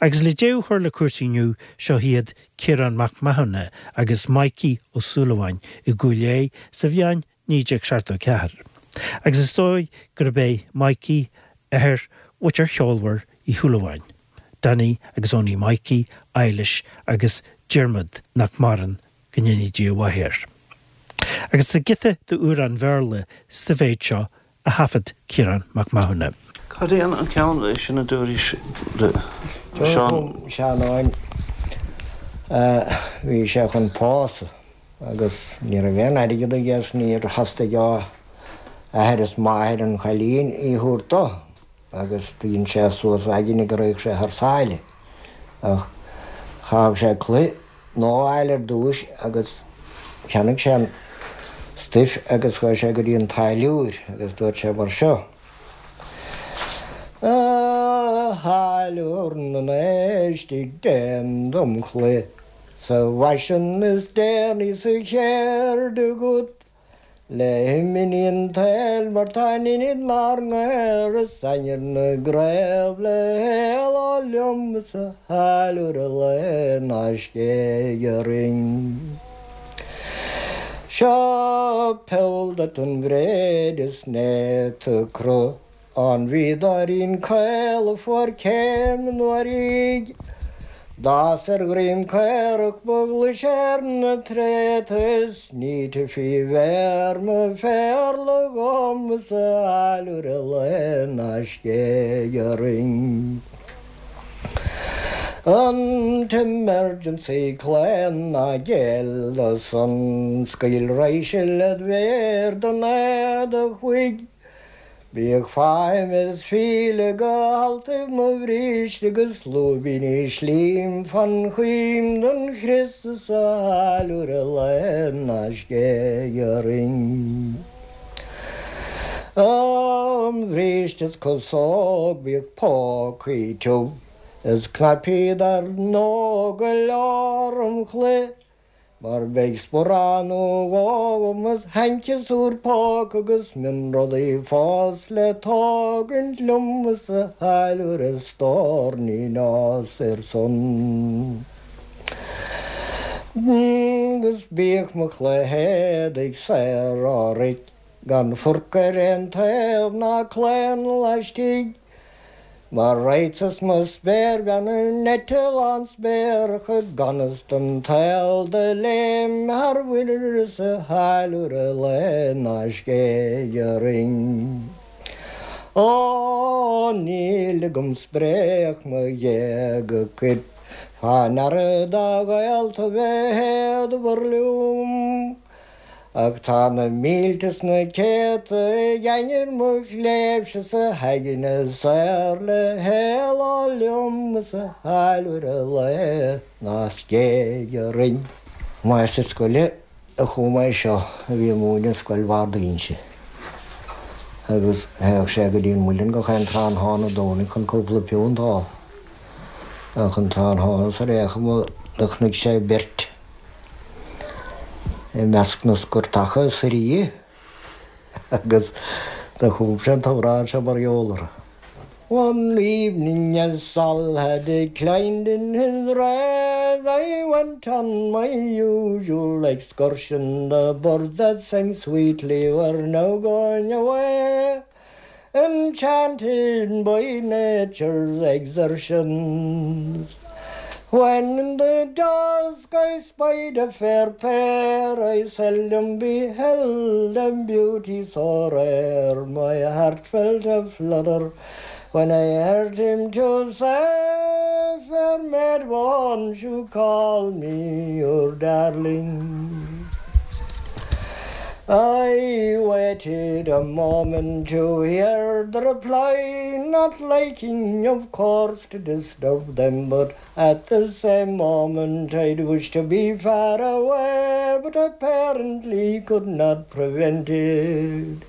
Agus le deireadh a chur le cúrsaí inniu, seo iad Ciarán Mac Mathúna agus Mikey Ó Súilleabháin i gCúil Aodha sa bhliain 1974. Agus is dóigh gurb é Mikey athair mhuintir cheolmhar Uí Shúilleabháin, Danny agus Owenie Mikey, Eilish agus Diarmuid nach maireann, go ndéanaí Dia a mhaith air. Agus tá giota d'amhrán Bhéarla sa mhéid seo a thaifead Ciarán Mac Mathúna. Cad é an ceann sin a dúraís le Seán? Seán bhí sé chun pósadh agus ní raibh aon airgead aige is níor theastaigh ó athair is máthair an chailín í a thabhairt dó agus dhein sé suas a aigne go raghadh sé thar sáile ach chaithfeadh sé culaith nua a fháil ar dtúis agus cheannaigh sé an stuif agus chuaigh sé go dtí an táilliúir agus dúirt sé mar seo, A tháilliúir na n-éistigh déan dom culaith sa bhfaisean is déanaí sa cheird agat. Le himní an tsaoil mar tá an inid 'nár ngaor is ainnir na gcraobh le héaló liom is a tháilliúir a lao ná scéig orainn. Seo poll duit an bhréid is néata cruth An bhíodóirín caol a fuair céim anuraidh, D'fhás ar dhroim caorach ba ghlaise ar na tréada Is ní titfí mhéar mo phéarla dhom is a tháilliúir a lao ná scéig orainn. An t-emergency claon ná géill dó san, Scaoil raidhse led mhéar den éadach bhuig. Bíodh faighim is fíle go haltaibh mo bhríste agus lúibíní slím fan choim don chrios is a tháilliúir a lao ná scéig orainn. Am bhríste is casóg bíodh pócaí tiubh is cnaipí dar ndóigh go leor im chulaith Mar beidh sparán nó dhó agam is hainceasúr póca agus mionrudaí fós le tógaint liom is a tháilliúir a stór ní nós ar son. Agus bíodh mo chulaith éadaigh saor ó roic gan forc ar aon taobh ná claon laistigh. Mar raghadsa 's mo spéirbhean in eitleán spéarach i gan fhios don tsaol do léim thar mhuir is a tháilliúir a lao ná scéig orainn. Ó níl agam spréach mo ghéaga cuir fá ndeara dá ghaolta bheith éadmhar liom. Ach tá na mílte 's na céadta ag ainnir mo chléibhse 's a haigne saor le héaló liom is a tháilliúir a lao ná scéig orainn. Máistir scoile a chum é seo a bhí ag múineadh i Scoil Bharr d'Inse agus théadh sé go dtí an muileann gach aon tráthnóna Domhnaigh chun cúpla punt a fháil. Ach an tráthnóna sar aon chuma do chonaic sé beirt. i measc na scoirteacha is a agus do chum sé an t-amhrán seo mar gheall orthu. One evening as Sol had declined in his rays I went on my usual excursion The birds that sang sweetly were now going away Enchanted by nature's exertions When in the dusk I spied a fair pair I seldom beheld a beauty so rare My heart felt a flutter when I heard him to say Fair maid won't you call me your darling I waited a moment to hear the reply Not liking of course to disturb them But at the same moment I'd wish to be far away But apparently could not prevent it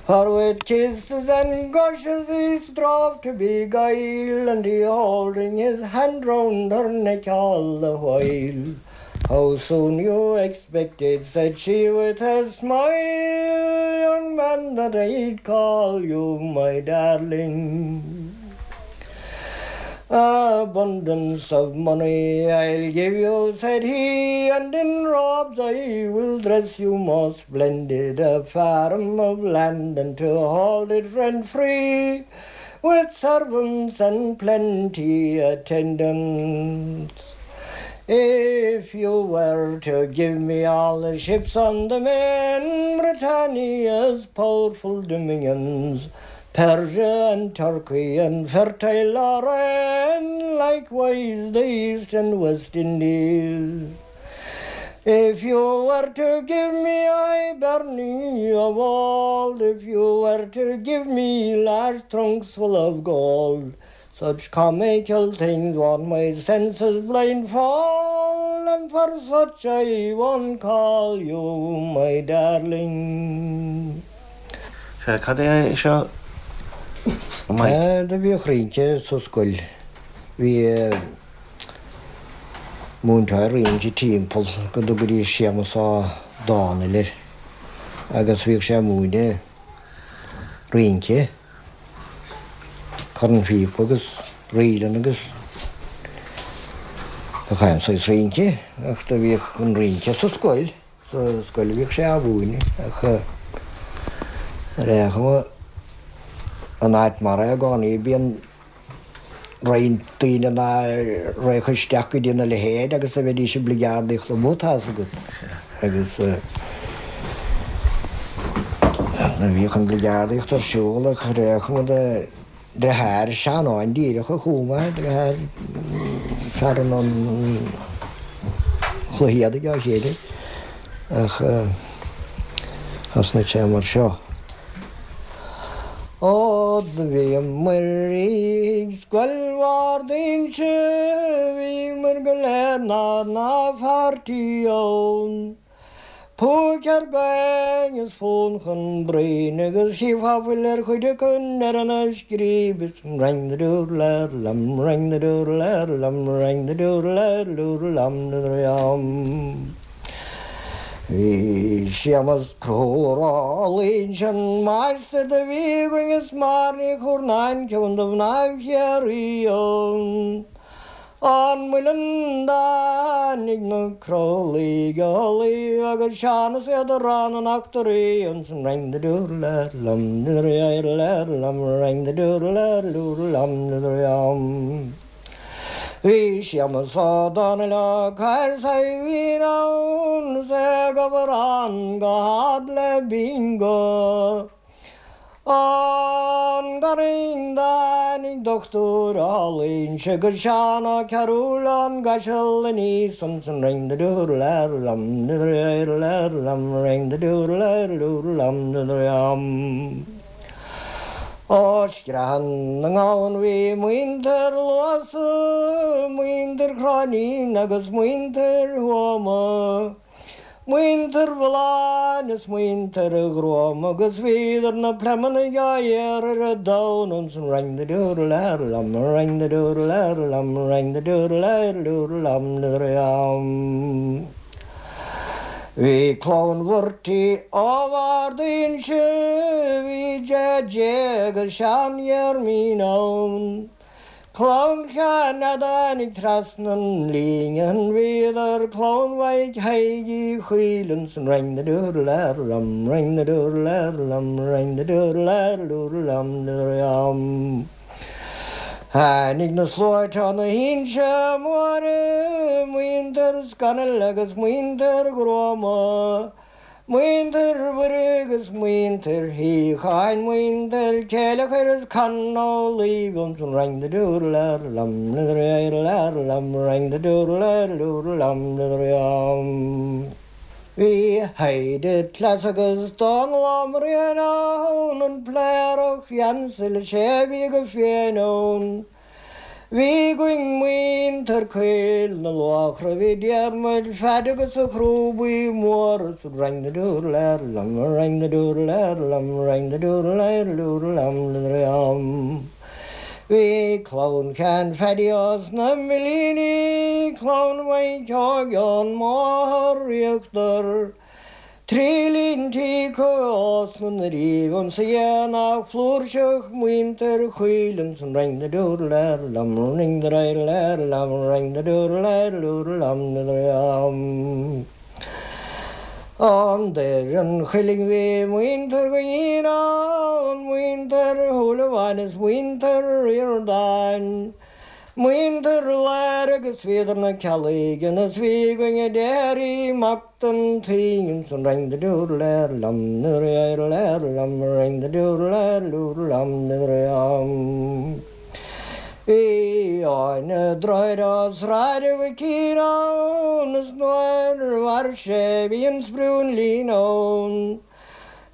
For with kisses and gushes he strove to beguile And he holding his hand round her neck all the while How soon you expected, said she with a smile, young man, that I'd call you my darling. Abundance of money I'll give you, said he, and in robes I will dress you most splendid, a farm of land and to hold it rent free, with servants and plenty attendants. If you were to give me all the ships on the main, Britannia's powerful dominions, Persia and Turkey and fertile Lorraine, likewise the East and West Indies. If you were to give me Hibernia of old, if you were to give me large trunks full of gold, such comical things won't my senses blindfold, and for such I won't call you my darling. Sea, cad é seo, a Mike? Do bhíodh rince sa scoil. Bhí múinteoir rince timpeall go dtugaidís Séamus Ó Domhnaill air agus bhíodh sé ag múineadh rince, cornphíopa agus ríleanna agus gach aon saghas rince ach do bhíodh an rince sa scoil. Sa scoil a bhíodh sé á mhúineadh ach ar aon chuma an áit mar é i gcónaí bíonn roinnt daoine ná raghadh isteach go dtí na leithéid agus do bheidís ag bligeardaíocht amuigh tá's agat agus do bhíodh an bligeardaíocht ar siúl ach ar aon chuma de Deartháir Seanáin díreach a chum é, deartháir fear an chluiche éadaigh á chéile ach thosnaigh sé mar seo. Ó do bhíomair ag Scoil Bhard Inse, bhíomair go léir 'nár n-pháirtí ann. Púic ar gcaing is fonn chun broinn agus chífeá fuil ar chuid acu ar an scríb is rang the doodle lam rang the doodle lam rang the doodle doodle lam lam. Bhí Séamas Conchúr Ó Loingsigh an máistir do bhí againn is Máire Ní Churnáin ceann de mhnáibh Chiarraí ann. An muileann dtáinig na crothlaigh Uladh agus Seán is iad a rá na n-eachtraí ansan rang the doodle lam the lam rang the doodle doodle lam the lam. Bhí Séamus Ó Domhnaill Ó Cathail Saidhbhín ann is é ag obair ann go hard le bingo. An garraí dtáinig dochtúir Ó Loingsigh agus Seán Ó Cearúil ón gCaiseal aníos ansan ring the doodle lam the lam ring the doodle doodle lam the lam. Ó Screathan na nGamhan bhí muintir Luasa, muintir Chróinín agus muintir Thuama. Muintir Mhulláin is muintir Ghruama agus bhíodar na pleimeannaigh á iarraidh ar an domhan ansan rang the doodle lam rang the doodle lam rang the doodle doodle lam lam. Bhí clann Mhurty ó Bhard Inse, bhí JJ agus Seán Dhearmín ann. Clann Sheáin a dtáinig trasna an líne an bhíodar clann Mhaidhc Thaidhg Uí Chuill ansan rang the doodle lam rang the doodle lam rang the doodle doodle lam lam. Tháinig na sluaite ó na hInse Móire, muintir Scannell agus muintir Ghruama, Muintir Mhuire agus muintir Shíocháin, muintir Chéileachair is Con Ó Laoi ansan rang the doodle lam lam rang the doodle doodle lam lam. Bhí Highde Cleas agus Dónal Ó Mriain ann, an Pléireach Jansel is é a bhí go fiáin ann. Bhí againn muintir Caol na Luachra, bhí Diarmuid Pheaid agus a Chrúbaí Móra sa rang the doodle lam rang the doodle lam rang the doodle doodle lam lam. Bhí clann Sheáin Phaddy ós na Millíní, clann Mhaidhc Óig ón mBóthar Íochtar. Trí lintí cos na nDoirí ann sa aonach flúirseach muintir Choill san ring the doodle lam ring the diddle lam ring the doodle lam lam. An Doire an Chuilinn bhí muintir Dhuinnín ann, muintir Shúilleabháin is muintir Ríordáin. Muintir Láir agus bhíodar na Ceallaigh is bhí againn Daidí Mac don tSaoin san ring the doodle lam lam ring the doodle lam lam. Bhí Áine Droichead ó Sráid Mhic ann is nuair a mhair sé bhí an sprúinlín ann.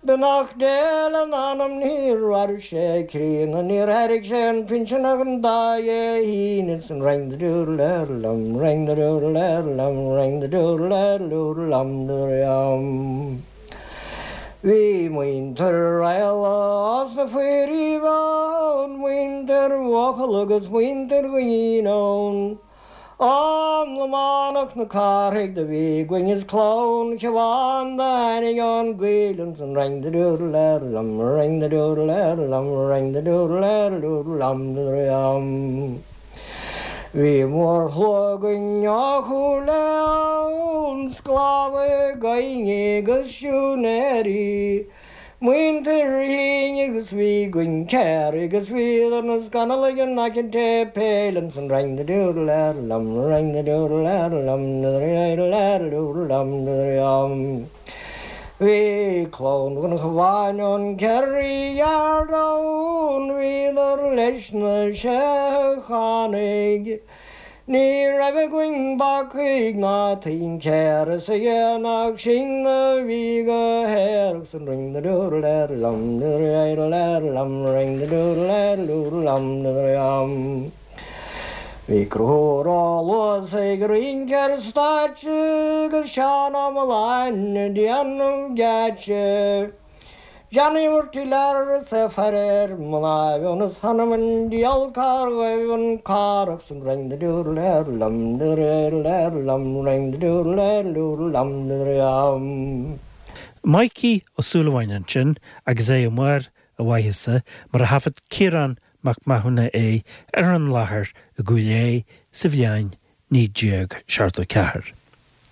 Beannacht Dé lena anam níor mhair sé críonna níor thairg sé an pinsean ach an dá Dhé hAoine san ring the doodle lam ring the doodle lam ring the doodle lam lam. Bhí muintir Raghallaigh as na Foirithibh ann, muintir Bhuachalla agus muintir Dhuinnín ann. An Lománach na Cárthaigh do bhí againn is clann Shiobhán do tháinig ón gcoill ansan ring the doodle lam ring the doodle lam ring the doodle lam lam. Bhí mórshlua againn ó Chúil Aodha ann, sclábhaithe gaibhne agus siúinéirí, muintir Fhinn agus bhí againn Ciarraí agus bhíodar na scannalaigh in aice an tséipéil ansan ring the doodle lam ring the doodle lam doodle lam lam. Bhí clann Dhonncha ón Kerry Yard ann, bhíodar leis na Seicheánaigh. Ní raibh againn bacaigh ná tincéara sa aonach sin a bhí go haerach san ring the doodle lam doodle lam ring the doodle lam lam. Bhí Conchúr Ó Luasaigh ag rince ar an stáitse agus Seán Ó Mealláin ag déanamh geáitse. Johnny Mhurty Lear is é faire ar mná ionas th'anam 'on diabhal cár ghaibh an Cárthach san ring the doodle lam doodle lam ring the doodle lam lam. Mikey Ó Súilleabháin ansin agus é i mbarr a mhaitheasa mar a thaifead Ciarán Mac Mathúna é ar an láthair i gCúil Aodha sa bhliain 1974.